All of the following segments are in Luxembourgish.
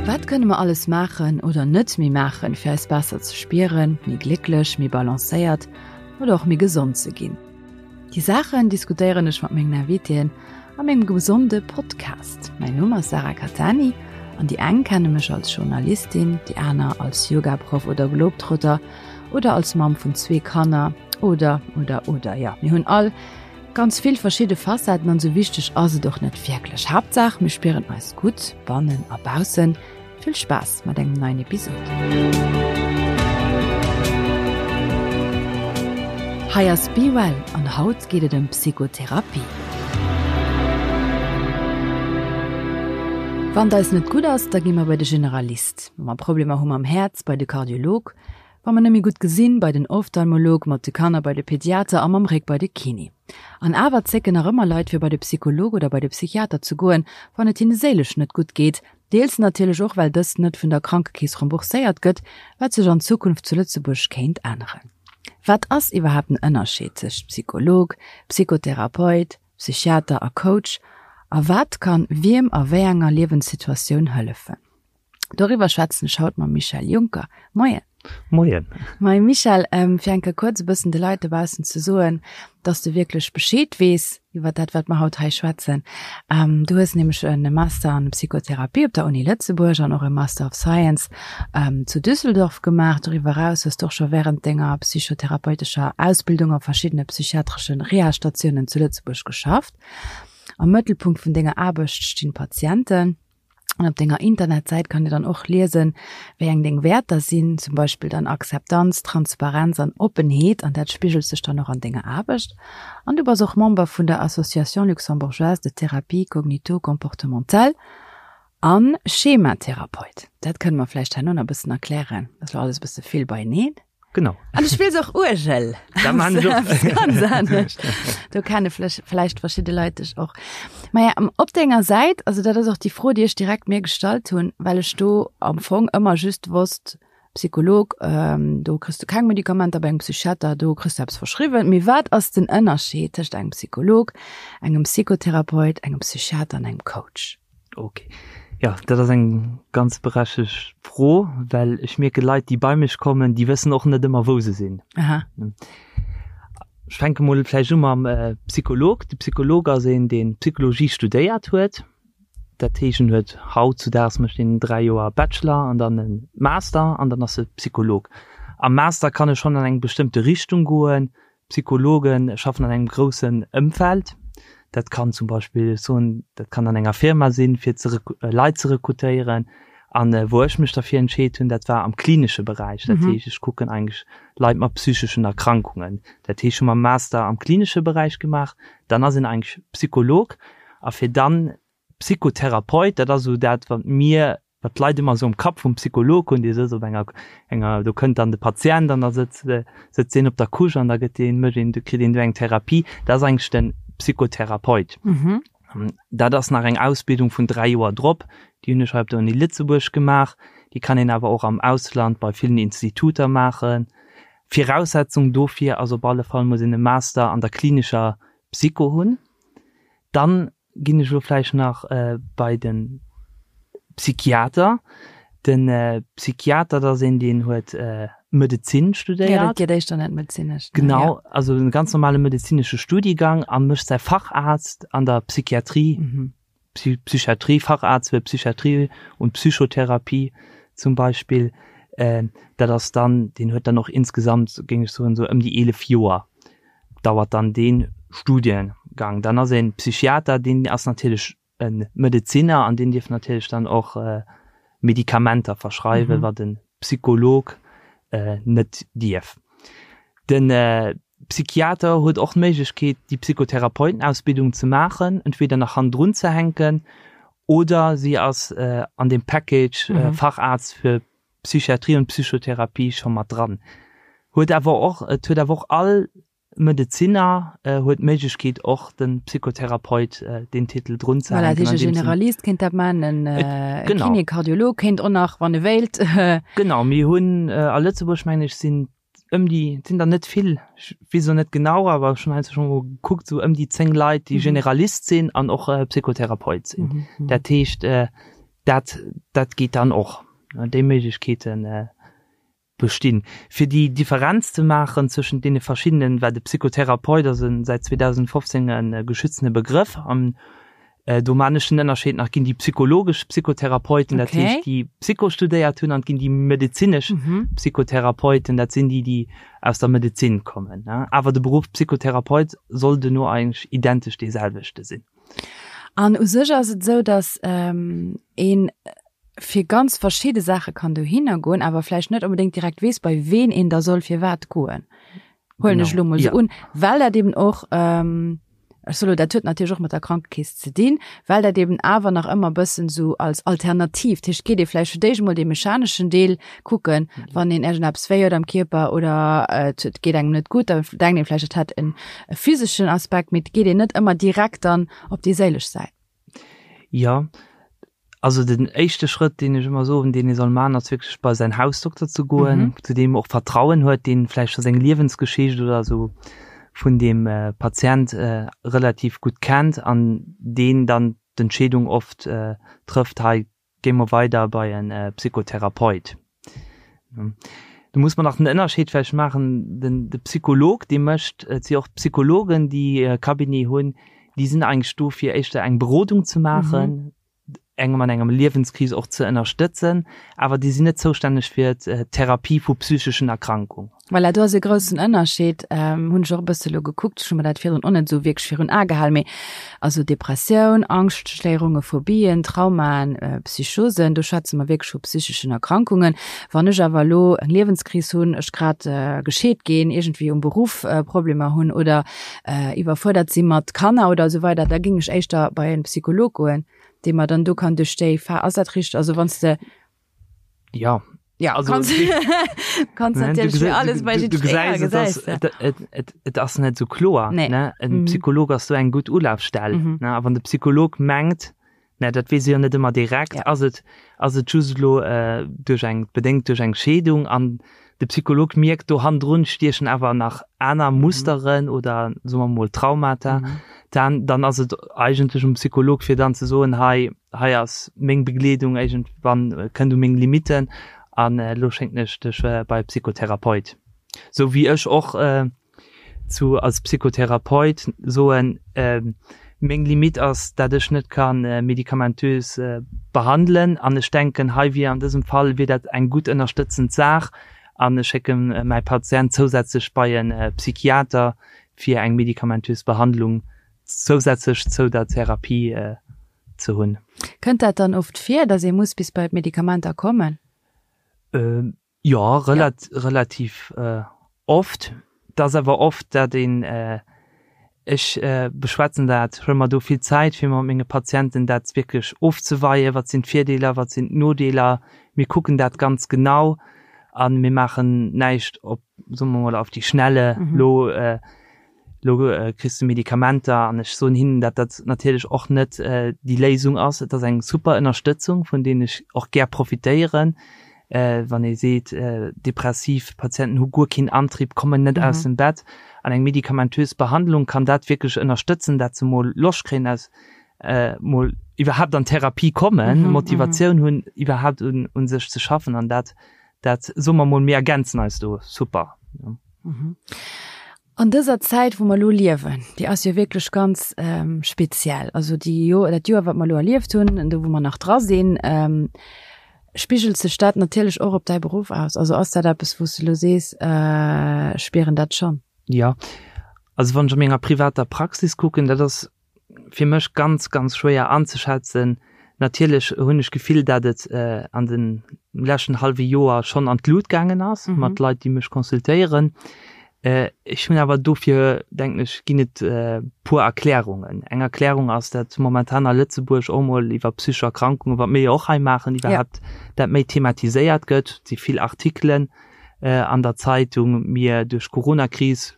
Wat kënne mer alles maachen oder net méi maachen, fir eis besser ze spieren, méi glécklech, méi balancéiert oder och méi gesond ze ginn? Déi Saachen diskutéieren ech mat mengen Invitéen a mengem gesonde Podcast. Mäin Numm ass Sarah Cattani an déi eng kenne mech als Journalistin, déi aner als Yogaproff oder Globetrotter oder als Mamm vun zwee Kanner oder oder oder. Jo, mir hunn all ganz vill verschidde Facetten an sou wichteg ass et och net wierklech. Haaptsaach mir spieren eis gutt, bannen a baussen. Vill Spaass mat engem neien Episod. Hei ass Be Well an haut geet et ëm Psychotherapie. Wann et eis net gutt ass, da gi mer bei de Generalist. Wa mer Problemer hu mam Häerz, bei de Kardiolog. Wa mer net méi gutt gesinn, bei den Ophtalmolog, mat de Kanner bei de Pediater a mam Réck bei de Kiné. An awer zécken nach ëmmer Leit fir bei de Psycholog oder bei de Psychiater ze goen, wann et hinne séilesch net gutt geet. Deels natierlech och well dëst net vun der Krankekeess rembourséiert gëtt, wat sech an Zukunft zu Lëtzebuerg kéint änneren. Wat ass iwwerhaapt den Ënnerscheed tëscht Psycholog, Psychotherapeut, Psychiater a Coach a wat kann wiem a wéi enger Liewenssituatioun hëllefen? Doriwwer schwätzen ech haut mam Michel Juncker. Moien. Moien. Moie Michel, fir eng Kéier kuerz e bëssen de Leit dobaussen ze soen, dass de wierklech Bescheed weess iwwer dat, wat mer haut hei schwätzen. Du hues nämlech e Master an Psychotherapie op der Uni Lëtzebuerg an och e Master of Science zu Düsseldorf gemaach. Doriwwer eraus hues de och scho wärend denger psychotherapeutescher Ausbildung a verschiddene psychiatresche Reha-Statiounen zu Lëtzebuerg geschafft. Am Mëttelpunkt vun denger Aarbecht stinn d'Patienten. An op denger Internetsäit kann Dir dann och liesen, wéi eng deng Wäerter sinn, zum Beispill dann Akzeptanz, Transparenz an Oppenheet, an dat spigelt sech dann och an denger Aarbecht. An du bass och Member vun der Association luxembourgeoise de thérapie cognito-comportementale a Schematherapeut. Dat kënne mer vläicht herno nach e bëssen erklären, dat ass lo alles e bësse vill beieneen. Genau. An du spills och Uergel. Dat man ech och. Ganz anescht. Do kenne vläicht verschidde Leit dech och. Maja, op denger Säit, also dat ass och déi Fro, déi ech direkt mir gestallt hunn, well ech do am Fong ëmmer just wosst, Psycholog, do kriss du keng Medikamenter, bei engem Psychiater, do kriss du eppes verschriwwen. Mee wat ass den Ënnerscheed tëscht engem Psycholog, engem Psychotherapeut, engem Psychiater an engem Coach? Ok. Jo, dat ass eng ganz berechtegt Fro, well ech mierke Leit, déi bei mech kommen, déi wëssen och net ëmmer, wou se sinn. Aha. Ech fänke mol vläicht u mam Psycholog. De Psycholog ass een, dee Psychologie studéiert huet. Dat heescht, en huet hautzudaags mécht een 3 Joer Bachelor an dann e Master an dann ass e Psycholog. Am Master kann e schonn an eng bestëmmte Richtung goen, Psychologe schaffen an engem groussen Ëmfeld. Dat kann zum Beispill, ech soen, dat kann an enger Firma sinn, fir ze Leit ze rekrutéieren. An wou ech mech derfir entscheet hunn, dat war am klinesche Beräich. Dat heescht, ech kucken eigentlech Leit mat psycheschen Erkrankungen. Dat heescht, ech hu mam Master am klinesche Beräich gemaach. Dann ass een eigentlech Psycholog. A fir dann Psychotherapeut, dat ass esou dat, wat mir wat d'Leit ëmmer esou am Kapp vum Psycholog hunn, dee sëtzt op enger, enger, do kënnt dann de Patient an da sëtzt, sëtzt deen op der Couche an da gëtt deen, mécht een, kritt een do eng Therapie. Dat ass eigentlech de Psychotherapeut. Dat ass nach eng Ausbildung vun 3 Joer drop, déi hunn ech hei op der Uni Lëtzebuerg gemaach. Déi kann een awer och am Ausland bei villen Instituter maachen. Viraussetzung dofir ass op alle Fall, muss een e Master an der klinescher Psycho hunn. Dann ginn ech elo vläicht nach bei de Psychiater. De Psychiater, dat ass een, deen huet Medezin studéiert. Jo, dat geet éischter net medezinesch. Genau, also e ganz normale medezinesche Studiegang a mécht säi Facharzt an der Psychiatrie, Psychiatrie, Facharzt für Psychiatrie und Psychotherapie zum Beispill. Dat ass dann, deen huet dann och insgesamt, géing ech soen, esou ëm déi 11 Joer. dauert dann dee Studiengang. Dann ass e Psychiater, deen ass natierlech e Medezinner an deen dierf natierlech dann och Medikamenter verschreiwen, wat e Psycholog net dierf. De Psychiater huet och d'Méiglechkeet, déi Psychotherapeutenausbildung ze maachen, entweder nach hannendrun ze hänken oder si ass an deem Package Facharzt fir Psychiatrie und Psychotherapie scho mat dran. Huet awer och, et huet awer och all Medezinner huet d'Méiglechkeet och de Psychotherapeut deen Titel drun ze Voilà, hänken. dat heescht e Generalist kéint dat man, en Genau. Kiné, Kardiolog kéint och nach, wann e wéilt. Genau, mir hunn a Lëtzebuerg, mengen ech, sinn ëm déi, et sinn der net vill, ech weess elo net genau, awer ech hunn heiansdo scho mol gekuckt, esou ëm déi 10 Leit, déi Generalist sinn an och Psychotherapeut sinn. Dat heescht,. Dat, dat geet dann och. Déi Méiglechkeete bestinn. Fir déi Differenz ze maachen zwëschent deene verschiddenen, well de Psychotherapeut ass e säit 2015 e geschützene Begrëff an do maan ech den Ënnerscheed nach, ginn déi psychologesch Psychotherapeuten, dat heescht déi Psycho studéiert hunn, an et ginn déi medezinesch Psychotherapeuten, dat sinn déi, déi aus der Medezin kommen. Awer de Beruff Psychotherapeut soll duerno eigentlech identesch dee selwechte sinn. An u sech ass et esou, datt een fir ganz verschidde Saache kann dohinner goen, awer vläicht net onbedéngt direkt weess, bei ween een da soll firwat goen. Huelen ech elo mol esou un, well dat eben och, ech soe lo, dat huet natierlech och mat der Krankekeess ze dinn, well dat eben awer nach ëmmer e bëssen esou als Alternativ, dat heescht, geet ee vläicht fir d'éischt emol dee mechaneschen Deel kucken, wann een iergendeppes wéi huet am Kierper oder et geet engem net gutt, da denkt een vläicht, et hätt en physeschen Aspekt, mee et geet een net ëmmer direkt dann op déi séilesch Säit. Jo, also den éischte Schrëtt, deen ech ëmmer soen, deen ee soll maachen, ass wierklech bei säin Hausdokter ze goen, zu deem e och Vertrauen huet, deen vläicht scho seng Liewensgeschicht oder esou vun deem Patient relativ gutt kennt an deen dann d'Entscheedung oft trëfft, hei Géi mer weider bei en Psychotherapeut. Do muss mer nach den Ënnerscheed vläicht maachen, den de Psycholog, dee mécht, et si och Psychologen, déi e Cabinet hunn, déi sinn eigentlech do fir éischter eng Berodung ze maachen, engem an engem Liewenskris och ze ënnerstëtzen, awer déi sinn net zoustänneg fir d'Therapie vu psycheschen Erkrankungen. Voilà, do ass e groussen Ënnerscheed, hunn ech och e bësse lo gekuckt, ech hu mer dat virdrun och net esou wierklech virun Ae gehalen, mee also Depressioun, Angschtstéierunge, Phobien, Traumaen, Psychosen, do schwätze mer wierklech vu psycheschen Erkrankungen. Wann ech awer elo eng Liewenskris hunn, ech grad gescheet ginn, iergendwéi um Beruff Problemer hunn oder iwwerfuerdert si mat Kanner oder esou weider, da géing ech éischter bei e Psycholog goen, dee mer dann do kann duerch déi Pha-, ass dat richteg? Also wann s de. Ja. Ja, also, kannst, kannst natürlich für alles bei du, du gesäis, et ass, et, et, et, et ass net so kloer nee. ne? En mhm. Psycholog ass so eng gutt Ulafstell mhm. ne? A wann de Psycholog mengt, ne, dat weess jo net ëmmer direkt, ja. ass et ass et just lo äh, duerch eng bedéngt duerch eng Scheedung an de Psycholog mierkt do hannendrun stiechen awer nach aner mhm. Musteren mhm. oder soe mer mol Traumata, mhm. dann, dann ass et eigentlech um Psycholog fir dann ze soen hei hei ass meng Begleedung, iergendwann kënnt u meng Limitten an elo schénken ech dech bei e Psychotherapeut. Sou wéi ech och zu als Psychotherapeut soen, meng Limite ass, dat ech net ka medikamentös behandelen an ech denken, hei wier an dësem Fall wier dat eng gutt ënnerstëtzend Saach an ech schécke mäi Patient zousätzlech bei e Psychiater fir eng medikamentös Behandlung zousätzlech zou der Therapie ze hunn. Kënnt dat dann oft vir, dass ee muss bis bei d'Medikamenter kommen? Jo, relativ oft. Et ass awer oft, dat een, ech beschwätzen dat, huele mer do vill Zäit, fir mat menge Patienten dat wierklech ofzeweien, wat sinn d'Virdeeler, wat sinn d'Nodeeler. Mir kucken dat ganz genau a mir maachen näischt op, soe mer mol, auf die Schnelle lo. Lo kriss de Medikamenter an ech soen hinnen, dat dat natierlech och net déi Léisung ass. Et ass eng super Ënnerstëtzung, vun deenen ech och gär profitéieren. Wann ee seet, depressiv Patienten hu guer keen Antrieb, kommen net aus dem Bett, an eng medikamentös Behandlung kann dat wierklech ënnerstëtzen, dat se mol Loscht kréien aus mol iwwerhaapt an Therapie kommen, Motivatioun hunn iwwerhaapt un sech ze schaffen an dat, dat soe mer mol, mir ergänzen eis do super. An dëser Zäit, wou mer elo liewen, déi ass jo wierklech ganz speziell. Also déi Joer, dat Joer, wat mer elo erlieft hunn, an do wou mer nach dra sinn, spigelt sech dat natierlech och op däi Beruff aus. Also ass dat eppes, wou s de elo sees, ech spieren dat schonn? Jo, also wann ech a menger privater Praxis kucken, dat ass fir mech ganz, ganz schwéier anzeschätzen. Natierlech hunn ech d'Gefill, dat et an de leschten hallwe Joer schonn an d'Lut gaangen ass mat Leit, déi mech consultéieren. Ech hunn awer dofir, denken ech, ginn et puer Erklärungen. Eng Erklärung ass, dat momentan a Lëtzebuerg och mol iwwer psychesch Erkrankungen, wat mir jo och hei maachen, iwwerhaapt dat méi thematiséiert gëtt. Et si vill Artikelen an der Zeitung. Mir duerch d'Coronakris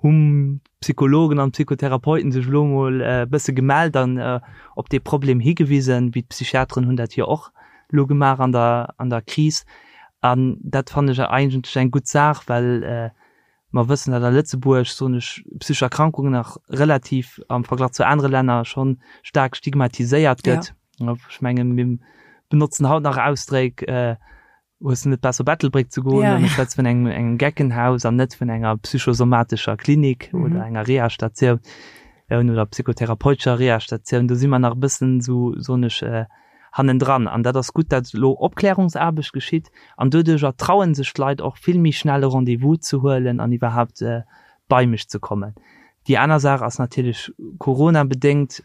hu Psychologen an Psychotherapeuten sech elo emol e bësse gemellt an op dee Problem higewisen, wéi d'Psychiateren hunn dat jo och elo gemaach an der an der Kris. An dat fannen ech eigentlech eng gutt Saach, well mer wëssen, datt a Lëtzebuerg, soen ech, psychesch Erkrankungen nach relativ am Verglach zu anere Länner schonn staark stigmatiséiert gëtt. Ech mengen, mir. benotzen haut nach Ausdréck, Hues de net besser op Ettelbréck ze goen? An ech schwätze vun engem, engem Geckenhaus an net vun enger psychosomatescher Klinik oder enger Reha-Statioun oder psychotherapeutescher Reha-Statioun. Do si mer nach e bëssen esou, soen ech, hannendran. An dat ass gutt, dat elo Opklärungsaarbecht geschitt an doduercher traue sech d'Leit och vill méi schnell e Rendez-vous ze huelen an iwwerhaapt bei mech ze kommen. Déi aner Saach ass natierlech Corona-bedéngt,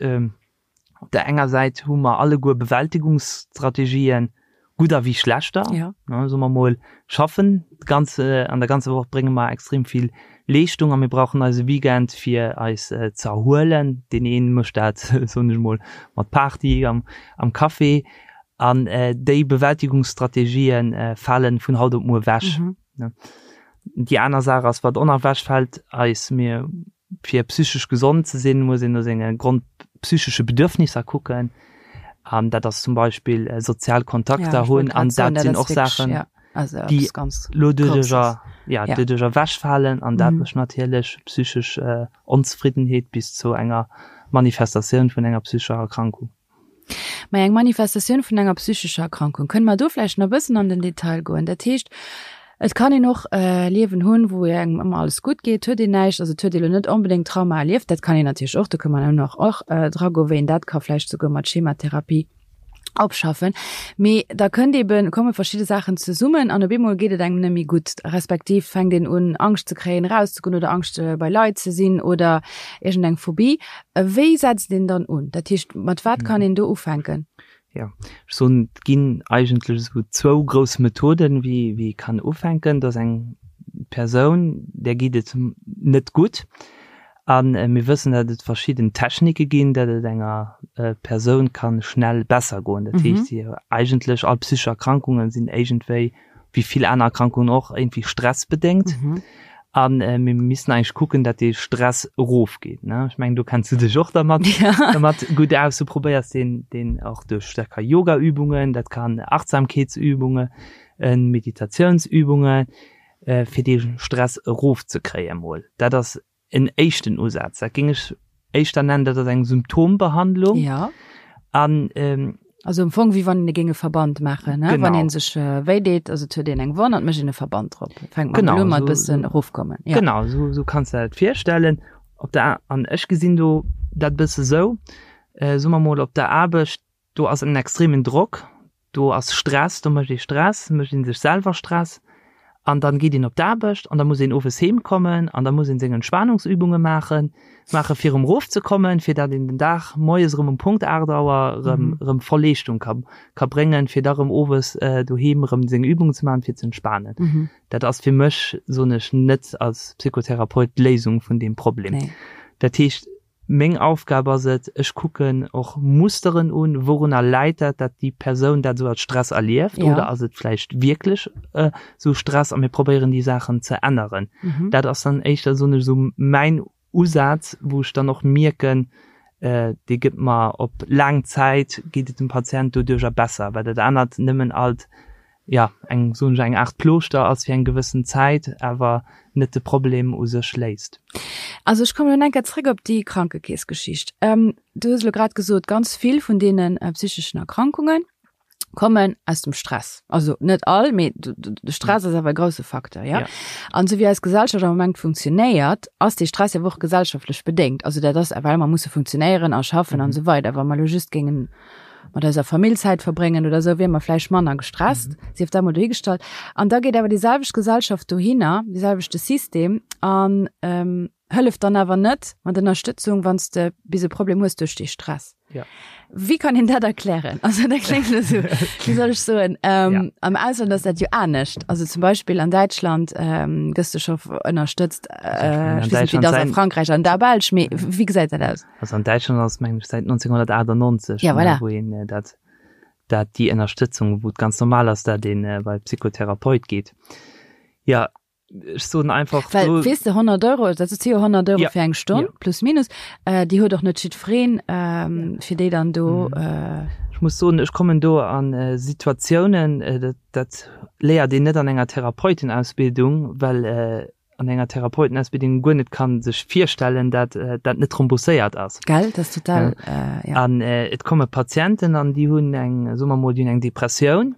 Op der enger Säit hu mer alleguer Bewältigungsstrategien, gudder wéi schlechter. Ja. Ne, soe mer mol, schaffen d'ganze, an der ganzer Woch brénge mer extrem vill Leeschtung a mir brauchen eise Weekend fir eis ze erhuelen. Deen een mécht dat, soen ech mol, mat Party am, am Café. An déi Bewältigungsstrategien falen vun haut op muer wech. Ne. Déi aner Saach ass, wat och nach wechfält, eis, mir Fir psychesch gesond ze sinn, muss een no senge grondpsychesche Bedürfnisser kucken. An dat ass zum Beispill sozial Kontakter hunn. An dat sinn och Saachen, déi elo doduercher, ja, doduercher ewechfalen. An dat mécht natierlech psychesch Onzefriddenheet bis zu enger Manifestatioun vun enger psychescher Erkrankung. Mä eng Manifestatioun vun enger psychescher Erkrankung, kënne mer do vläicht nach e bëssen an den Detail goen? Dat heescht, et kann een och e Liewen hunn, wou engem ëmmer alles gutt geet, huet een näischt, also et huet ee lo net onbedéngt Trauma erlieft, dat kann een natierlech och, do kënne mer nach och dra goen, wéi een dat ka vläicht souguer mat Schematherapie opschaffen. Mee da kënnt eben, komme verschidde Saachen zesummen an op eemol geet et engem net méi gutt, respektiv fänkt een un Angscht ze kréien, erauszegoen oder Angscht bei Leit ze sinn oder iergendeng Phobie. Wéi setzt een dann un? Dat heescht, mat wat kann een do ufänken? Jo, ech soen, et ginn eigentlech esou zwou grouss Methoden, wéi wéi ee kann ufänken. Dat ass eng Persoun, där geet et net gutt a mir wëssen, datt et verschidden Technike ginn, datt et enger Persoun ka schnell besser goen. Dat heescht, si eigentlech all psychesch Erkrankungen sinn iergendwéi wéi vill aner Erkrankungen och, iergendwéi stressbedéngt. A mir missten eigentlech kucken, datt dee Stress erofgeet, ne? Ech mengen, do kenns du dech och dermat, dermat gutt aus. Du probéiers deen, deen och duerch, dat ka Yogaübungen, dat kann Achtsamkeetsübungen, Meditatiounsübungen, fir dee Stress erofzekréie mol. Dat ass en éischten Usaz. Dat géing ech éischter nennen, dat ass eng Symptombehandlung. Ja. An, ähm, Also am Fong, wéi wann een e géing e Verband maachen, ne? Genau. Wann een sech äh, wéi deet, also et huet een eng Wonn an et mécht een e Verband drop. Fänkt man Genau, elo mat so, bëssen so, erofkommen. Ja. Genau, so, so kanns du dat virstellen. Op der, an ech gesinn do dat bësse sou, äh, soe mer mol op der Aarbecht, Do ass en extremen Drock, do ass Stress, do mécht ee Stress, mécht ee sech selwer Stress an dann geet een op d'Aarbecht an da muss een owes heem kommen an da muss een seng Entspannungsübunge maachen, maache fir erëm erof ze kommen, fir dat een den Dag moies erëm um Punkt 8 Auer erëm erëm voll Leeschtung ka ka bréngen, fir da erëm owes doheem erëm seng Übungen ze maachen, fir ze entspanen. Dat ass fir mech, soen ech, net als Psychotherapeut d'Léisung vun deem Problem. Dat heescht, Meng Aufgab ass et, ech kucken och Musteren un, wourunner läit dat, dat déi Persoun dat esou als Stress erlieft Ja. oder ass et vläicht wierklech esou Stress a mir probéieren déi Saachen ze änneren. Dat ass dann éischter, soen ech, esou mäin Usaz, wou ech dann och mierken, dee gëtt mer op laang Zäit geet et dem Patient doduercher besser, well dat anert nëmmen alt jo, eng, soen ech, eng Aart Plooschter ass fir eng gewëssen Zäit, awer net de Problem u sech léist. Also ech kommen elo eng Kéier zréck op déi Krankekeessgeschicht. Du hues elo grad gesot, ganz vill vun deene psycheschen Erkrankunge kommen aus dem Stress. Also net all, mee de Stress ass awer e grousse Facteur, ja? An esou wéi eis Gesellschaft am Moment funktionéiert, ass dee Stress jo och gesellschaftlech bedéngt. Also dat ass, well mer musse funktionéieren a schaffen an esou weider. Wa mer elo just géingen mat eiser Famill Zäit verbréngen oder esou, wier mer vläicht manner gestresst, mhm. sief dat mol dohigestallt. An da geet awer déi selwecht Gesellschaft dohinner, dee selwechte System an ähm, hëlleft dann awer net mat Ënnerstëtzung, wann s de bis e Problem hues duerch dee Stress. Ja. Wie kann een dat erklären? Also dat klingt esou, wéi soll ech soen? Ähm, ja. Am Ausland ass dat jo anescht. Also zum Beispill an Däitschland ähm, gëss du scho ënnerstëtzt, äh, ich weess net, wéi dat ass a Frankräich an der Belsch, mee wéi gesäit dat aus? Also an Däitschland ass mengen ech säit 1998, ja, voilà. wou een äh, dat, dat déi Ënnerstëtzung, wou et ganz normal ass, dat een äh, bei Psychotherapeut geet. Ja, ech soen einfach Well, do, weess de 100 Euro, dat si jo 100 Euro ja. fir eng Stonn, ja. plus minus, äh, déi huet och net jiddwereen, ähm, ja. fir déi dann do. Mhm. Äh, Ech muss soen, ech kommen do an äh, Situatiounen, äh, dat, dat léiert een net an enger Therapeutenausbildung, well äh,. an enger Therapeutenausbildung guer net kann sech virstellen, dat dat net rembourséiert ass. Gell, dat ass total, ja. An et komme Patienten an déi hunn eng, soe mer mol, déi hunn eng Depressioun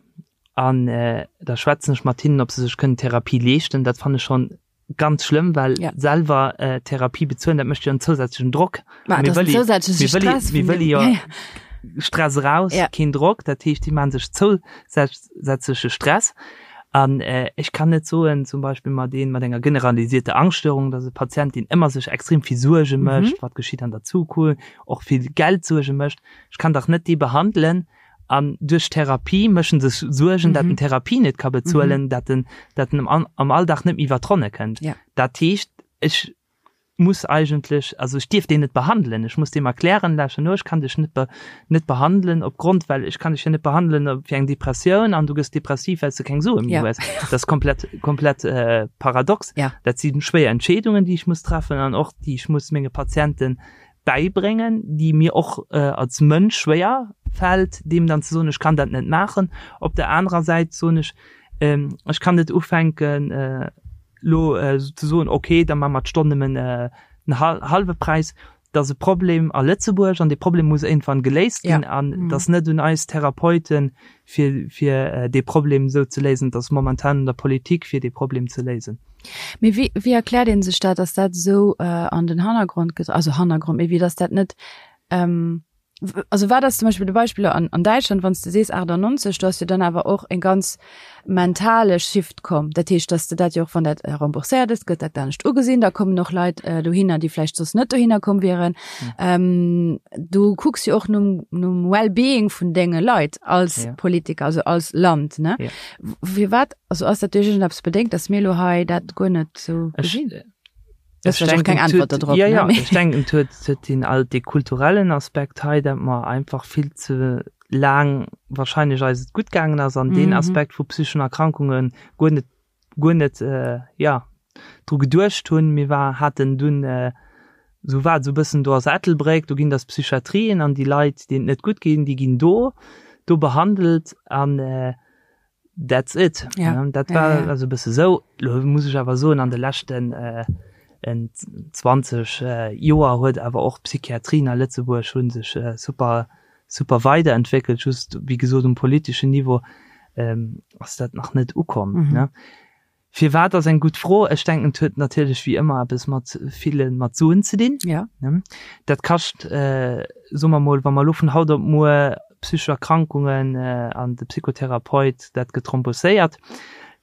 an da schwätzen ech mat hinnen, ob se sech kënnen Therapie leeschten. Dat fannen ech schonn ganz schlëmm, well ja. selwer äh, Therapie bezuelen, dat mécht jo en zousätzlechen Drock. Ma, mir wëlle zousätzleche Stress. Mir wëlle jo ja, ja. Stress raus, ja. keen Drock, dat heescht, déi maache sech zousätzleche Stress. An äh, ech kann net soen, zum Beispill mat een mat enger generalisierter Angststörung, dass e Patient, deen ëmmer sech extrem vill Suerge mhm. mécht, mhm. wat geschitt an der Zukunft, och vill Geldsuerge mécht, ech kann dach net dee behandelen, An duerch d'Therapie mécht en sech Suergen, dat en d'Therapie net ka bezuelen, dat en, dat en am, am Alldag net méi iwwer d'Ronne kënnt. Dat heescht, ech muss eigentlech, also ech dierf deen net behandelen. Ech muss deem erklären, lauschter no, ech kann dech net be, net behandelen opgrond, well ech kann dech jo net behandelen fir eng Depressioun an du gëss depressiv, well s de keng Sue méi hues. Dat ass komplett, komplett paradox. Dat si schwéier Entscheedungen, déi ech muss treffen an och déi ech muss menge Patienten bäibréngen, déi mir och als Mënsch schwéier fält, deem dann ze soen, ech kann dat net maachen. Op der anerer Säit soen ech, ech kann net ufänken elo ze soen, okay, da maache mer d'Stonn nëmmen den hallwe Präis. Dat ass e Problem a Lëtzebuerg an dee Problem muss iergendwann geléist ginn an et ass net un eis Therapeuten, fir, fir dee Problem esou ze léisen. Et ass momentan un der Politik, fir dee Problem ze léisen. Mee wéi, wéi erkläert ee sech dat, dass dat esou an den Hannergrond ge-, also Hannergrond, mee wéi dass dat net, also wat ass zum Beispill de Beispill an, an Däitschland, wann s de sees 98, do ass jo dann awer och e ganz mentale Shift komm. Dat heescht, dass de dat jo och, wann dat rembourséiert ass, gëtt dat anescht ugesinn, da kommen och Leit dohinner, déi vläicht soss net dohinner komm wieren. Du kucks jo och nom, nom Well-being vun denge Leit als ja. Politiker, also als Land, ne? Ja. Firwat, also ass dat duerch iergendeppes bedéngt, dass mir elo hei dat guer net sou gesinn? Ech denken, keng Antwort dodrop. Ja, ja, ech denken, et huet, huet den all dee kulturellen Aspekt hei, dat mer einfach vill ze laang wahrscheinlech eis et gutt gaangen ass an deen Aspekt vu psycheschen Erkrankunge guer net, guer net, ja, dru geduecht hunn. Mir war, haten dunn, esou war et esou e bëssen, do ass Ettelbréck, do ginn dass Psychiatrien an déi Leit, deenen et net gutt ginn, déi ginn do, do behandelt an that's it. Ja. Dat war ja, ja. also e bësse sou. Lo muss ech awer soen, an de leschten 20 Joer huet awer och d'Psychiatrien a Lëtzebuerg hu sech super super weiderentwéckelt, just wéi gesot um politeschen Niveau ass dat nach net ukomm. Mhm. Ne? Firwat ass eng gutt Fro. Ech denken et huet natierlech wéi ëmmer eppes mat ville mat Suen ze dinn. Ja. Ne? Dat kascht, äh, soe mer mol, wa mer elo vun haut op muer psychesch Erkrankungen äh, an de Psychotherapeut dat gëtt rembourséiert,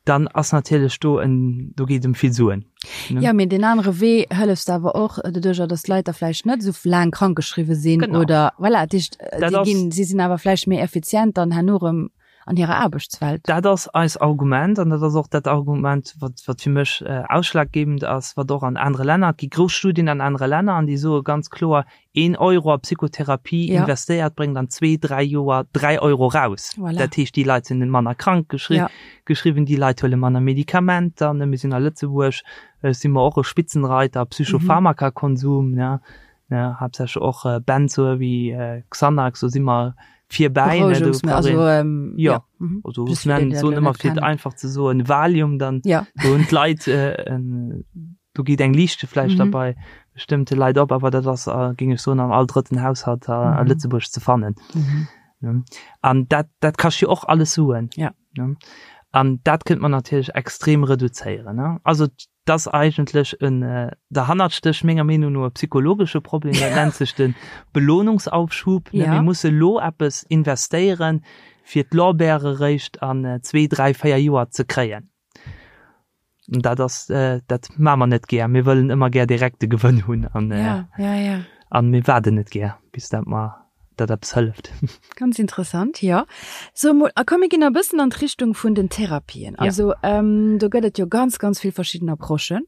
dann ass natierlech do en, do geet ëm vill Suen. Ne? Ja, mee deen anere Wee hëllefs de awer och doduercher, datt d'Leit da vläicht net esou laang krankgeschriwwe sinn Genau. oder voilà, dat heescht, Dat déi ass- ginn, si sinn awer vläicht méi effizient dann herno erëm an hirer Aarbechtswelt. Dat ass eis Argument an dat ass och dat Argument, wat, wat fir mech ausschlaggebend ass, wat och an anere Länner, et gi grouss Studien an anere Länner an déi soe ganz kloer, een Euro a Psychotherapie Ja. investéiert bréngt an zwee, dräi Joer dräi Euro raus. Voilà. Dat heescht, déi Leit sinn manner krank geschri Ja. geschriwwen, déi Leit huele manner Medikamenter. Ne, mir sinn a Lëtzebuerg, si mer och e Spitzenreiter a Psychopharmakakonsum, ne, ne, haaptsächlech och Benzoe wéi Xanax, do si mer virbäi. Ne, do Berouegungsmëttel, brauch also, een, ähm, ja, ja, mhm. also Just ech fir déi, nennen, déi dat soen elo ëmmer net fir et kennen. einfach ze soen, Valium, dann Ja. do hunn d'Leit en, do geet eng Liichte vläicht da Mhm. bei bestëmmte Leit op, awer dat ass, géing ech soen, an all drëtten Haushalt a Mhm. Lëtzebuerg ze fannen. Mhm. Ne? An dat, dat kascht jo och alles Suen. Ja. Ne? An dat kënnt man natierlech extrem reduzéieren. Ne? Also dat ass eigentlech en, derhannert stécht menger Meenung no e psychologesche Problem, dat nennt sech de Belohnungsaufschub. Ne? Ja. Mir musse lo eppes investéieren, fir d'Lorbeere réischt an zwee, dräi, véier Joer ze kréien. Dat ass, dat maache mer net gär. Mir wëllen ëmmer gär direkt de Gewënn hunn an ja, ja, ja. an mir waarden net gär, bis dat mer dat eppes hëlleft. Ganz interessant, jo. So mol, a komm mir ginn e bëssen an d'Richtung vun den Therapien. Ja. Also ähm, do gëtt et jo ganz, ganz vill verschidden Approchen.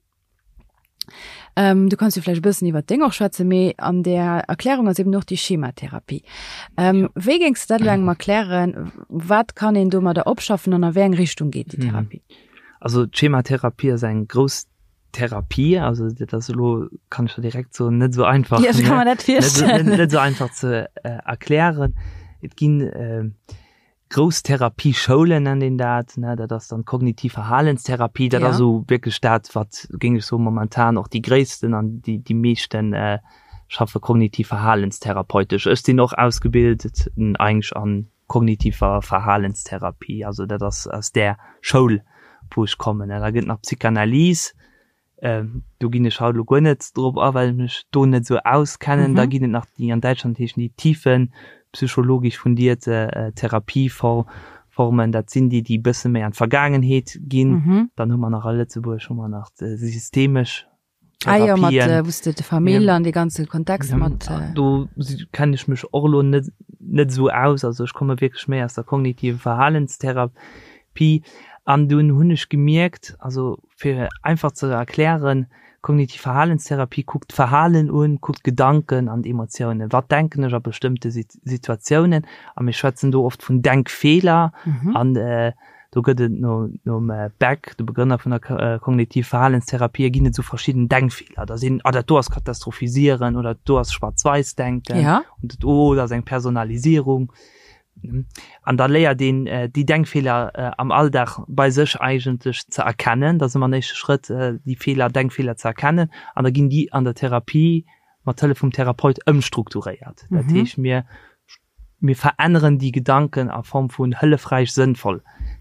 Ähm, du kanns jo vläicht e bëssen iwwer deng och schwätzen, mee an där Erklärung ass eben och déi Schematherapie. Ähm, wéi géings du dat elo engem erklären? Wat kann een domadder opschaffen an a wéi eng Richtung geet déi Therapie? Also d'Schematherapie ass eng grouss Therapie, also dat ass elo, kann ech der direkt soen, net esou einfach, Ja, ech ka mer dat net, virstellen. net esou einfach ze erklären. Et ginn. Grouss Therapieschoulen nennt een dat, ne, dat ass dann d'kognitiv Verhalenstherapie, dat ass esou wierklech dat, wat, géing ech soen, momentan och déi gréissten an déi, déi meeschten schaffe kognitiv verhalenstherapeutesch. Ech sinn och ausgebilt eigentlech an kognitiver Verhalenstherapie, also dat ass aus där Schoul, wou ech kommen. Da gëtt nach Psychanalyse, Do ginn ech haut elo guer net drop a, well ech mech do net esou auskennen. Da ginn et nach déi, an Däitschland heeschen déi tiefenpsychologisch fundierte Therapieformen. Dat sinn déi, déi e bësse méi an d'Vergaangenheet ginn. Dann hu mer nach a Lëtzebuerg hu mer nach d'systemesch Therapien. Ah jo, mat wou s de d'Famill an dee ganze Kontext mat. Do kennen ech mech och elo net net esou aus. Also ech komme wierklech méi aus der kognitiven Verhalenstherapie. An dunn hunn ech gemierkt, also Fir einfach ze erklären, Kognitiv Verhalenstherapie kuckt d'Verhalen un, kuckt d'Gedanken an d'Emotiounen. Wat denken ech a bestëmmte Situatiounen? A mir schwätzen do oft vun Denkfeeler. An do gëtt et no nom Beck, de Begrënner vun der Kognitiv Verhalenstherapie, ginn et esou verschidden Denkfeeler. Da sinn, ah dat do ass Katastrophisieren oder dat do ass Schwaarz-Wäiss-Denken und dat do ass eng Personalisierung. An da léiert een déi Denkfeeler am Alldag bei sech eigentlech ze erkennen. Dat ass ëmmer en éischte Schrëtt, déi Feeler, Denkfeeler ze erkennen. An da ginn déi an der Therapie mat Hëllef vum Therapeut ëmstrukturéiert. Dat heescht, mir, mir veränneren déi Gedanken a Form vun hëllefräich, sënnvoll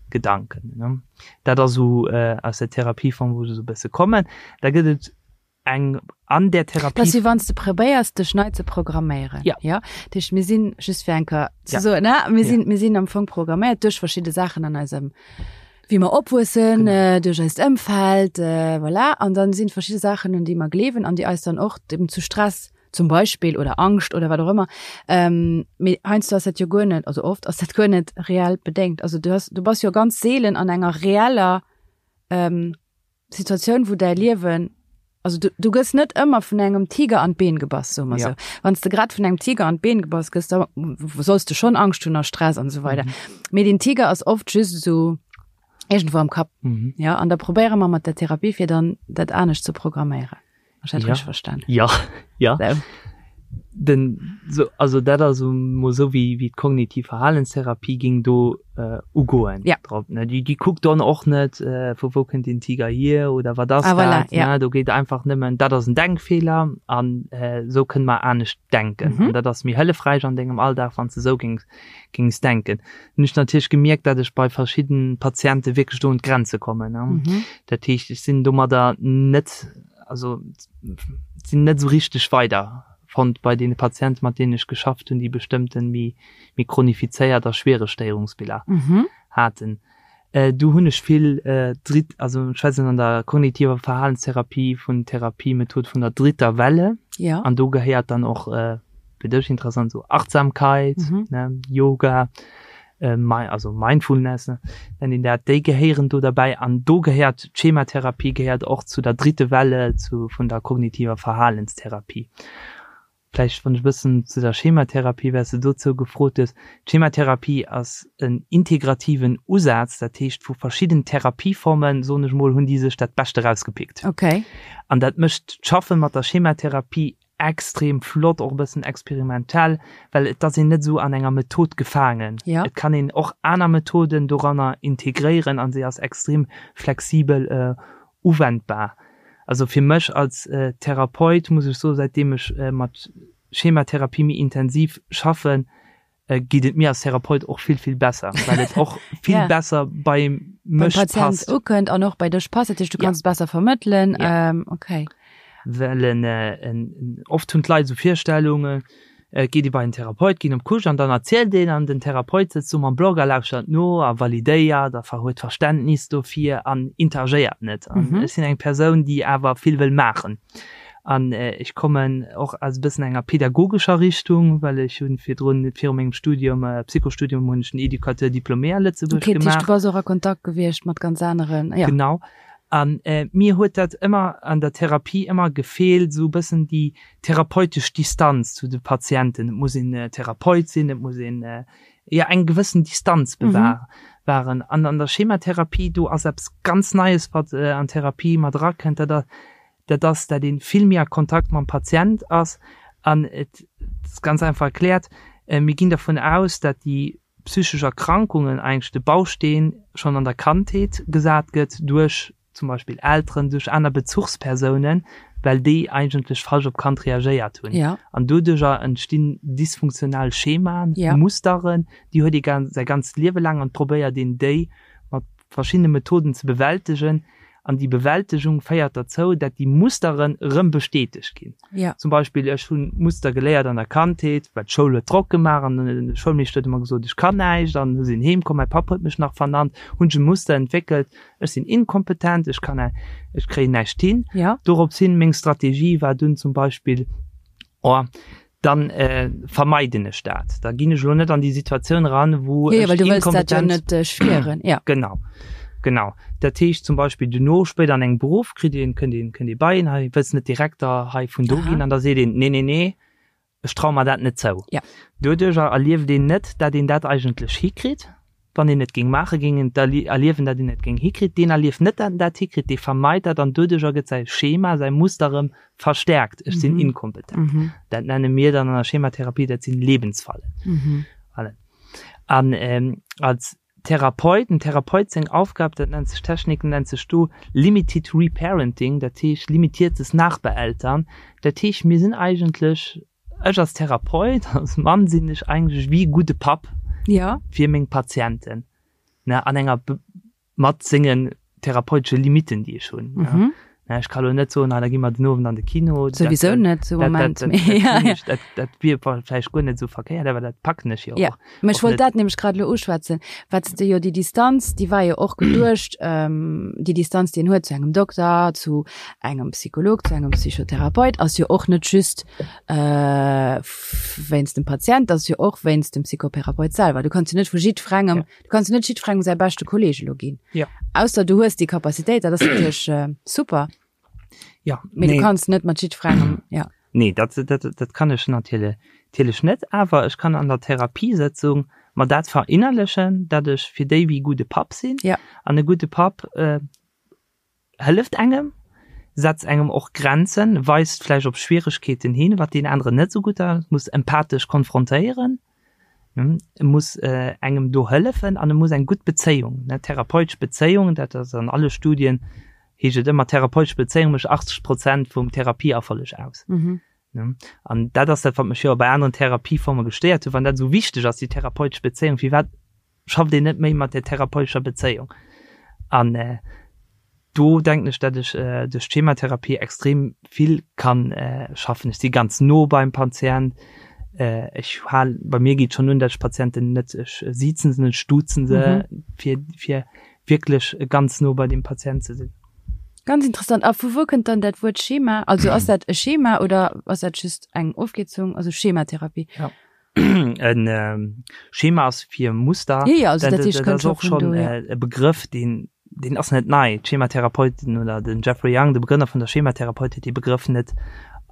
Gedanken. Dat ass esou aus der Therapieform, wou ech esou e bësse kommen. Da gëtt et eng an där Therapie. Dat ass wéi wann s de probéiers dech nei ze programméieren. Ja. Ja? Dat heescht, mir sinn, just fir eng Kéier ze ja. soen, ne? Mir sinn, ja. mir sinn am Fong programméiert duerch verschidde Saachen an eisem, wéi mer opwuessen, genau. äh, duerch eist Ëmfeld, äh, voilà. An dann sinn verschidde Saachen, un déi mer gleewen an déi eis dann och eben zu Stress zum Beispill oder Angscht oder wat och ëmmer. Ähm, mee heiansdo ass dat jo guer net, also oft ass dat guer net reell bedéngt. Also du hast, du bass jo ganz seelen an enger reeller ähm, Situatioun, wou däi Liewen, also du, du gëss net ëmmer vun engem Tiger an d'Been gebass, soe mer ja. sou. Wann s de grad vun engem Tiger an d'Been gebass gëss, da solls du schon Angscht hunn a Stress an esou weider. Mhm. Mee den Tiger ass oft just esou iergendwou am Kapp. Mhm. Ja, an da probéiere mer mat der Therapie, fir dann dat anescht ze programméieren. Ech hat ja. richtig verstanden. Ja, ja. So. Den, so, also dat ass mo so wie, wie d'kognitiv Verhalenstherapie ging do äh, ugoen. Ja. Drop, ne? Die, die kuckt dann och net, äh, vu wou kënnt den Tiger hier oder wat ass ah, voilà, dat. Ja. Ne? Do geet einfach nëmmen, dat ass en Denkfehler an äh, so kënne mer anescht denken. Mhm. An dat ass méi hëllefräich an dengem Alldag, wann s de sou gings, gings denken. Hunn ech natierlech gemierkt, dat ech bei verschidden Patiente wierklech do un d'Grenze kommen. Ne? Mhm. Dat heescht, ech sinn domadder net, also sinn net esou richteg weider fonnt bei deene Patienten, mat deenen ech geschafft hunn, déi bestëmmten méi, méi chronifizéiert a schwiereg Stéierungsbiller mhm. haten. Äh, do hunn ech vill äh, dritt, also ech schwätzen an der kognitiver Verhalenstherapie vun Therapiemethod vun der dritter Welle. Ja. An do gehéiert dann och äh, fir dech interessant, so Achtsamkeit, mhm. ne, Yoga, äh, also Mindfulness, ne, nennt een dat, déi gehéieren do derbäi. An do gehéiert d'Schematherapie gehéiert och zu der dritte Welle zu, vun der kognitiver Verhalenstherapie. Vläicht wann ech e bëssen zu der Schematherapie, well s de dozou gefrot hues, D'Schematherapie ass en integrativen Usaz, dat heescht vu verschidden Therapieformen, soen ech mol, hunn déi sech dat Bescht erausgepickt. Okay. An dat mécht d'Schaffe mat der Schematherapie extrem flott, och e bëssen experimentell, well et ass een net esou an enger Method gefaangen. Ja. Et kann een och aner Methoden doranner integréieren an se ass extrem flexibel uwendbar. Also fir mech als Therapeut muss ech soen, säitdeem ech mat Schematherapie méi intensiv schaffen, geet et mir als Therapeut och vill, vill besser, well et och vill ja. besser bei mech Patient passt. ukënnt an och bei dech passt, dat heescht, du Ja. kanns et besser vermëttelen. Ja. Ähm, okay. Well en, äh, en, en, oft hunn d'Leit esou Virstellungen, äh, geet ee bei en Therapeut, ginn op d'Couche an dann erzielt een an den Therapeut sëtzt do mam Block a lauschtert no a validéiert a ver huet Verständnis dofir an interagéiert net. An Mhm. ech sinn eng Persoun, déi awer vill wëll maachen. An ech kommen och aus e bëssen enger pedagogescher Richtung, well ech hunn virdrun, viru mengem Studium, Psychostudium, hunn ech den Éducateur diplômé a Lëtzebuerg Okay, dat heescht, gemaach. du bass och a Kontakt gewiescht mat ganz aneren, ja. Genau. An mir huet dat ëmmer an der Therapie ëmmer gefeelt, esou e bëssen déi therapeutesch Distanz zu de Patienten. Et muss een Therapeut sinn, et muss een, jo, eng gewëssen Distanz bewahren. An an der Schematherapie, do ass eppes ganz Neies, wat an d'Therapie mat erakënnt, dat ass, dat ass, dat ee vill méi a Kontakt mam Patient ass an et ass ganz einfach erkläert, mir ginn dervun aus, dat déi. psychesch Erkrankungen eigentlech de Bausteen schonn an der Kandheet gesat gëtt duerch zum Beispill Elteren, duerch aner Bezuchspersounen, well déi eigentlech falsch op d'Kand reagéiert hunn. Ja. An doduercher entstinn dysfunktional Schemaen, ja. Musteren, déi huet ee säi ganzt Liewe laang an probéiert een déi mat verschiddene Methoden ze bewältegen. An déi Bewältegung féiert derzou, dat déi Musteren erëm bestätegt ginn. Ja. Zum Beispill, ech hunn Muster geléiert an der Kandheet, well d'Schoul huet Drock gemaach an de Schoulmeeschter huet ëmmer gesot, ech kann näischt an hu sinn heem komm, mäi Papp huet mech nach vernannt, hunn ech e Muster entwéckelt, ech sinn inkompetent, ech kann, ech kréien näischt hin. Ja. Dorops hin, meng Strategie war dunn zum Beispill, oh, dann vermeiden ech dat. Da ginn ech elo net an déi Situatioun eran, wou ech inkompetent. Ja, well du wëlls dat jo net spieren. Ja. Genau, genau. Dat heescht zum Beispill duerno, spéider an engem Beruff, kritt een, kënnt een, kënnt ee bei een, hei wëlls net Direkter hei vun do ginn? An da seet een, nee, nee, nee, ech traue mer dat net zou. Ja. Doduercher erlieft een net, dat een dat eigentlech hikritt. Wann een et géing maachen, géing een erliewen, dat een et géing hikritt. Deen erlieft net, dat en dat hikritt, dee vermeit dat an doduercher gëtt säi Schema, säi Muster erëm verstärkt, Ech sinn inkompetent. Dat nenne mir dann an der Schematherapie, dat sinn Lebensfallen. Voilà. An als Therapeut, dem Therapeut seng Aufgab, dat nennt sech, Technik nennt sech do Limited Reparenting, dat heescht limitiertes Nachbeeltern. Dat heescht, mir sinn eigentlech Ech als Therapeut, als Mann sinn ech eigentlech wéi e gudde Papp ja. fir meng Patienten, ne, an enger mat sengen therapeutesche Limitten, déi ech hunn. Mhm. Ne, ech ka lo net soen, ah, da gi mer den Owend an de Kino. Souwisou net zum Moment. Dat, dat, dat, ja, ja. dat, dat wier vläicht guer net esou verkéiert, awer dat packen ech jo ja. och. Mä ech wollt dat nämlech grad elo uschwätzen, wat s de jo déi Distanz, déi war jo och geduecht, ähm, déi Distanz, déi een huet zu engem Dokter, zu engem Psycholog, zu engem Psychotherapeut, ass jo och net just äh, wéinst dem Patient, ass jo och wéinst dem Psychotherapeut selwer. Du kanns jo net vu jiddwerengem, ja. du kanns jo net jiddwerengem säi beschte Kolleeg elo ginn. Ja. Ausser du hues déi Capacitéit, dat ass natierlech äh, super. Ja, Mee nee. du kanns net mat jiddwerengem, ja. Nee, dat, dat, dat kann ech natierlech natierlech net, awer ech kann an der Therapiesëtzung mer dat verinnerlechen, dat ech fir déi wéi gudde Papp sinn. Ja. An e gudde Papp äh, hëlleft engem, setzt engem och Grenzen, weist vläicht op Schwieregkeeten hin, wat deen aneren net esou gutt ass, muss empathesch konfrontéieren, e muss engem do hëllefen an e muss eng gutt Bezéiung, ne, therapeutesch Bezéiung, dat ass an alle Studien, heescht et ëmmer, therapeutesch Bezéiung mécht 80 Prozent vum Therapieerfolleg aus. An dat ass dat, wat mech jo bei aneren Therapieforme gestéiert huet, wann dat esou wichteg ass, déi therapeutesch Bezéiung, firwat schafft een net méi mat där therapeutescher Bezéiung. An do denken ech, dat ech duerch d'Schematherapie extrem vill kann schaffen. Ech si ganz no beim Patient. Ech hal, bei mir geet schonn un, dat ech Patienten net, ech sizen se net, ech duzen se, fir, fir wierklech ganz no bei deem Patient ze sinn. Ganz interessant. A vu wou kënnt dann dat Wuert Schema? Also ass dat e Schema oder ass dat just eng Ofkierzung, also Schematherapie? Ja. En Schema ass fir Muster. Ja, ja, also dat heescht, dat ass och schonn e Begrëff, deen, deen ass net nei. D'Schematherapeuten oder den Jeffrey Young, de Begrënner vun der Schematherapeutik, huet dee Begrëff net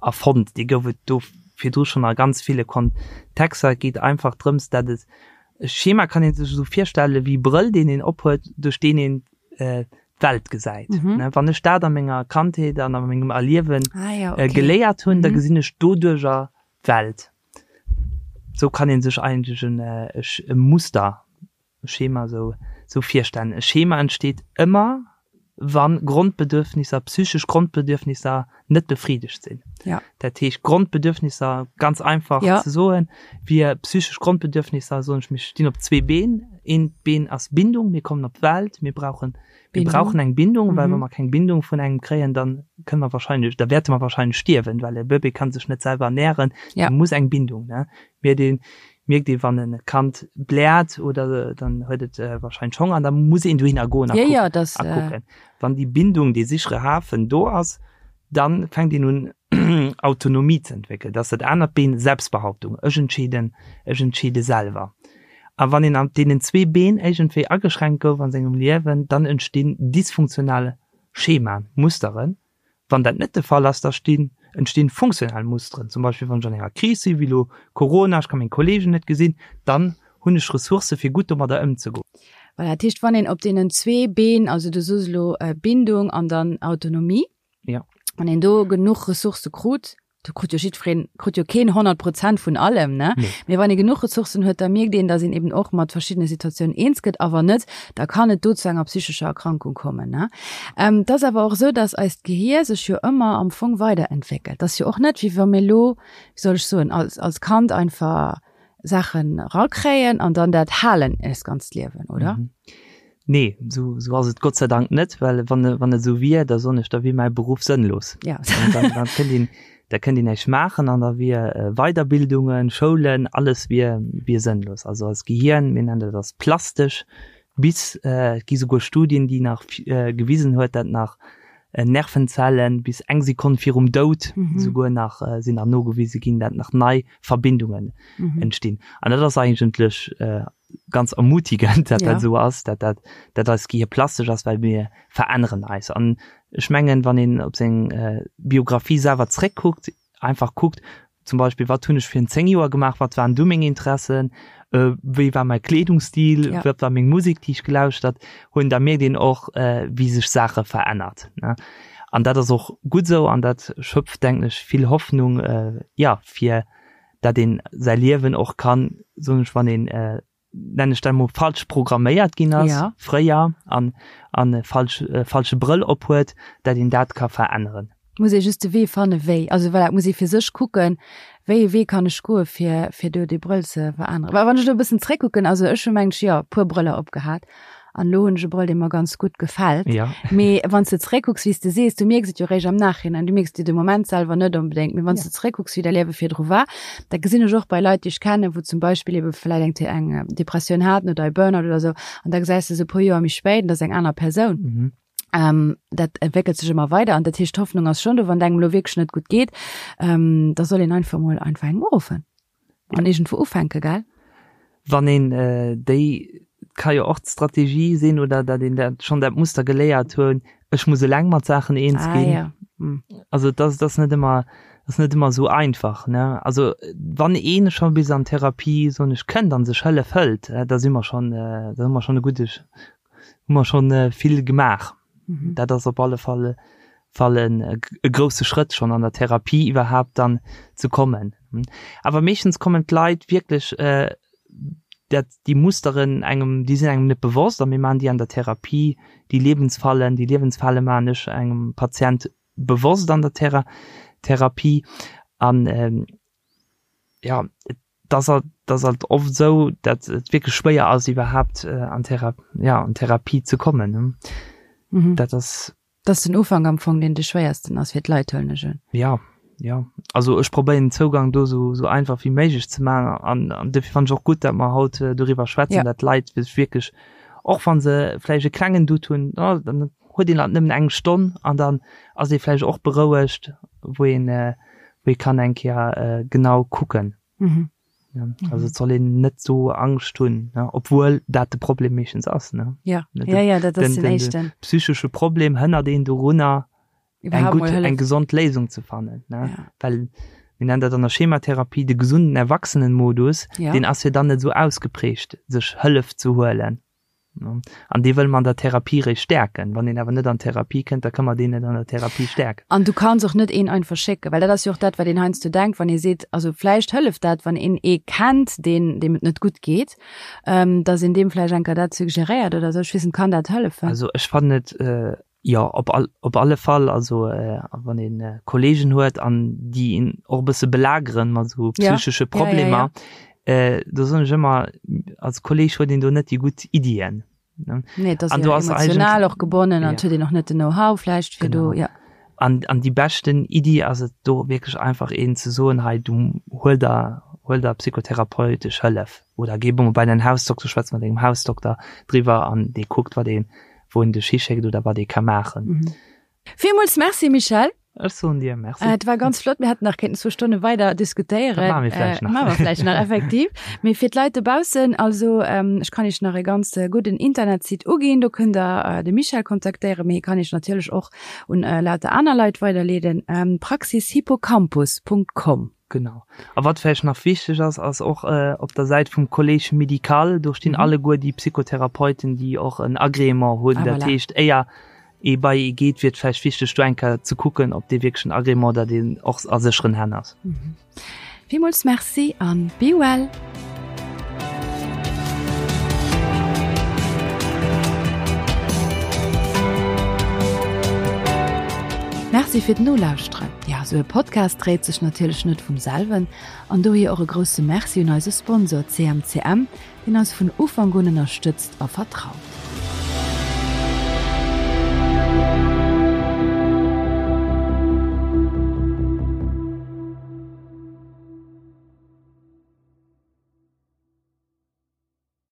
erfonnt. Dee gouf et do virdru schonn a ganz ville Kontexter. Et geet einfach drëms, dat et, e Schema kann ee sech esou virstelle wéi e Brëll, deen een ophuet, duerch deen een d'Welt gesäit. Wann ech dat a menger Kandheet an a mengem Erliewe geléiert hunn, da gesinn ech doduercher d'Welt. Sou kann een sech eigentlech en e Muster, e Schema sou sou virstellen. E Schema entsteet ëmmer wann Grondbedürfnisser, psychesch Grondbedürfnisser net befriedegt sinn. Ja. Dat heescht Grondbedürfnisser, ganz einfach ja. ze soen, wier psychesch Grondbedürfnisser, soen ech, mir stinn op zwee Been. Eent Been ass Bindung, mir kommen op d'Welt, mir brauchen Mir brauchen eng Bindung, well wa mer keng Bindung vun engem kréien, dann kënne mer wahrscheinlech, da wäerte mer wahrscheinlech stierwen, well e Bëbee kann sech net selwer ernähren, ja. muss eng Bindung, ne. Mierkt een, mierkt ee wann e Kand bläert oder dann huet et wahrscheinlech Honger an da muss een dohinner goen a kucken. Ja, ja, das, a kucken. Wann déi Bindung, dee sichere Hafen do ass, dann fänkt een un Autonomie ze entwéckelen. Dat ass dat anert Been, Selbstbehauptung, ech entscheeden, ech entscheede selwer. A wann een an deenen zwee Been iergendwéi ageschränkt gouf a sengem Liewen, dann entstinn dysfunktional Schemaen, Musteren. Wann dat net de Fall ass, da stinn, entstinn funktional Musteren. Zum Beispill wann ech an enger Kris sinn, wéi elo Corona, ech ka meng Kollegen net gesinn, dann hunn ech Ressourcë fir gutt domadder ëmzegoen. Voilà, dat heescht, wann een op deenen zwee Been, also du soos elo Bindung an dann Autonomie, Ja. wann een do genuch Ressourcë krut. Do krut jo jiddwereen, krut jo keen 100 Prozent vun allem, ne? Nee. Mee wann ee genuch Ressourcen huet, da mierkt een, datt een eben och mat verschiddene Situatiounen eens gëtt. A wann net, da kann et do zu enger psychescher Erkrankung kommen, ne? Ähm, et ass awer och esou, datt eist Gehier sech jo ëmmer am Fong weiderentwéckelt. Et ass jo och net, wéi wa mir elo, wéi soll ech soen, als, als Kand einfach Saachen erakréien an dann dat halen eist ganzt Liewen, oder? Mhm. Nee, sou, sou ass et Gott sei Dank net, well wann, wann et sou wier, da soen ech, da wier mäi Beruff sënnlos. Ja. Dann, dann kënnt een, da kënnt een näischt maachen an da wier äh, Weiderbildungen, Schoulen, alles wier, wier sënnlos. Also eist Gehirn, mir nennen dat ass plastesch, bis, äh, et gi souguer Studien, déi nach äh, gewisen huet, dat nach äh, Nervenzellen bis eng Sekonn virum Doud mhm. souguer nach äh, sinn nach nogewise ginn, dat nach nei Verbindungen mhm. entstinn. An dat ass eigentlech äh, ganz ermutigend, dat ja. dat so ass, dat dat, dat eist Gehir plastesch ass, well mir veränneren eis. An ech mengen, wann een op seng äh, Biografie selwer zréckkuckt, einfach kuckt, zum Beispill wat hunn ech virun 10 Joer gemaach, wat waren du meng Interessen, äh, wéi war mäi Kleedungsstil, ja. wat war meng Musek, déi ech gelauschtert hunn, da mierkt een och, äh, wéi sech Saache verännert. Ne? An dat ass och gutt esou an dat schöpft, denken ech, vill Hoffnung, äh, ja, fir dat een säi Liewen och kann, soen ech, wann een, äh, nennen ech dat emol, falsch programméiert ginn ass, ja. fréier, an, an e falsch, e falsche Brëll ophuet, dat een dat ka veränneren. Muss ee just de Wee fanne wéi, also voilà, muss ee fir sech kucken, wéi ee Wee kann ech goe fir, fir do dee Brëll ze veränneren. Well wann ech elo e bëssen zréckkucken, also ech hu mengt jo e puer Brëller opgehat an elo hunn ech e Brëll, dee mer ganz gutt gefält. Ja. Mee wann s de zréckkucks, wéi s de sees, du mierks et jo réischt am Nachhinein, du mierks et jo de Moment selwer net onbedéngt, mee wann s Ja. de zréckkucks, wéi däi Liewe virdru war, Dat gesinn ech och bei Leit, déi ech kennen, wou zum Beispill ebe vläit eng eng Depressioun haten oder e Burnout oder esou, an da gesäis de se e puer Joer méi spéit an dat ass eng aner Persoun. Mhm. Ähm, dat entwéckelt sech ëmmer weider an dat heescht, d'Hoffnung ass schonn do, wann et engem elo wierklech net gutt geet, ähm, da soll een einfach mol einfach engem uruffen an iergendwou ufänken, gell? Wann een déi, ka jo och d'Strategie sinn, oder datt een dat schonn dat Muster geléiert hunn, ech muss eleng mat Saachen eens Ah ginn. ja. Hm. Also dat ass net ëmmer, ass net ëmmer esou einfach, ne. Also wann ee scho bis an Therapie, soen ech, kënnt an sech Hëllef hëlt, da si mer schonn, da hu mer schonn e gudde, hu mer schonn vill gemaach. Mhm. Dat ass op alle Fall Fall en e grousse Schrëtt schonn an der Therapie iwwerhaapt dann ze kommen. Awer meeschtens kommen d'Leit wierklech dat déi Musteren engem, déi sinn engem net bewosst a mir maachen déi an der Therapie, déi Lebensfallen, déi Liewensfale maachen ech engem Patient bewosst an der Thera Therapie an ja, et ass halt, et ass halt oft esou, datt et wierklech schwéier ass iwwerhaapt an Thera ja an Therapie ze kommen. Mhm. Dat ass. Dat ass den Ufank am Fong, deen de schwéiersten ass fir d'Leit, huelen ech un. Ja, ja. Also ech probéieren den Zougang do esou esou einfach wéi méiglech ze maachen an an dofir fannen ech och gutt, datt mer haut doriwwer schwätzen, Ja. datt d'Leit sech wierklech, och wa se vläicht e klengen Doute hunn, oh dann huet een halt nëmmen eng Stonn an dann ass ee vläicht och berouegt, wou een wou ee kann eng Kéier genau kucken. Mhm. Ja, also et soll een net sou Angscht hunn, ne, obwuel dat de Problem meeschtens ass, ne. Ja, Den, ja, ja, dat ass den, den den, den éischten. psychesche Problem hënnert een dorunner, eng Iwwerhaapt gutt, mol Hëllef. eng gesond Léisung ze fannen, ne. Ja. Well mir nennen dat an der Schematherapie de gesunden Erwachsenenmodus, Ja. deen ass jo dann net sou ausgeprägt, sech Hëllef ze huelen. An dee wëlle mer an der Therapie réischt stäerken. Wann een awer net an d'Therapie kënnt, da ka mer deen net an der Therapie stäerken. An du kanns och net een einfach schécken, well dat ass jo och dat, wat een heiansdo denkt, wann ee seet, also vläicht hëlleft dat, wann een ee kennt, deen, deem et net gutt geet, dass een deem vläicht eng Kéier dat suggeréiert oder esou. Ech weess net, kann dat hëllefen? Also ech fannen et, jo, op all, op alle Fall. Also wann ee Kollegen huet an déi een och e bësse belageren mat esou psychesche Problemer, Do soen ech ëmmer, als Kolleg huet een do net déi gutt Iddien. Nee, dat ass jo emotional och gebonnen an huet een och net den Know-how vläicht fir do, ja. An, an déi beschten Iddi ass et do wierklech einfach een ze soen, hei du huel der, huel der psychotherapeutesch Hëllef oder géi emol bei däin Hausdokter, schwätz mat dengem Hausdokter driwwer an dee kuckt wat een, wou en dech hischéckt oder wat ee ka maachen. Villmools Merci Michèle. Ech soen dir Merci. Et war ganz flott. Mir hätten nach kéinten zwou Stonne weider diskutéieren. Dat maache mir vläicht nach. Maache mer vläicht nach, effektiv. Mee fir d'Leit dobaussen, also ech kann iech nach e ganz gudden Internetsite uginn. Do kënnt der de Michèle kontaktéieren, mee hie kann iech natierlech och un lauter aner Leit weiderleeden, praxishippocampus.com. Genau. A wat vläicht nach wichteg ass, ass och op der Säit vum Collège médical, do stinn alleguer déi Psychotherapeuten, déi och en Agrément hunn. Ah, Dat voilà. heescht, éier. Ee bei ee geet, wier et vläicht wichteg, do eng Kéier ze kucken, ob dee wierklech en Agrément, datt een och a sécheren Hänn ass. Villmools Merci an be well! Merci fir d'Nolauschteren. Ja, sou e Podcast dréit sech natierlech net vum selwen an dohier och e grousse Merci un eise Sponsor CMCM, deen eis vun Ufank un ënnerstëtzt a vertraut.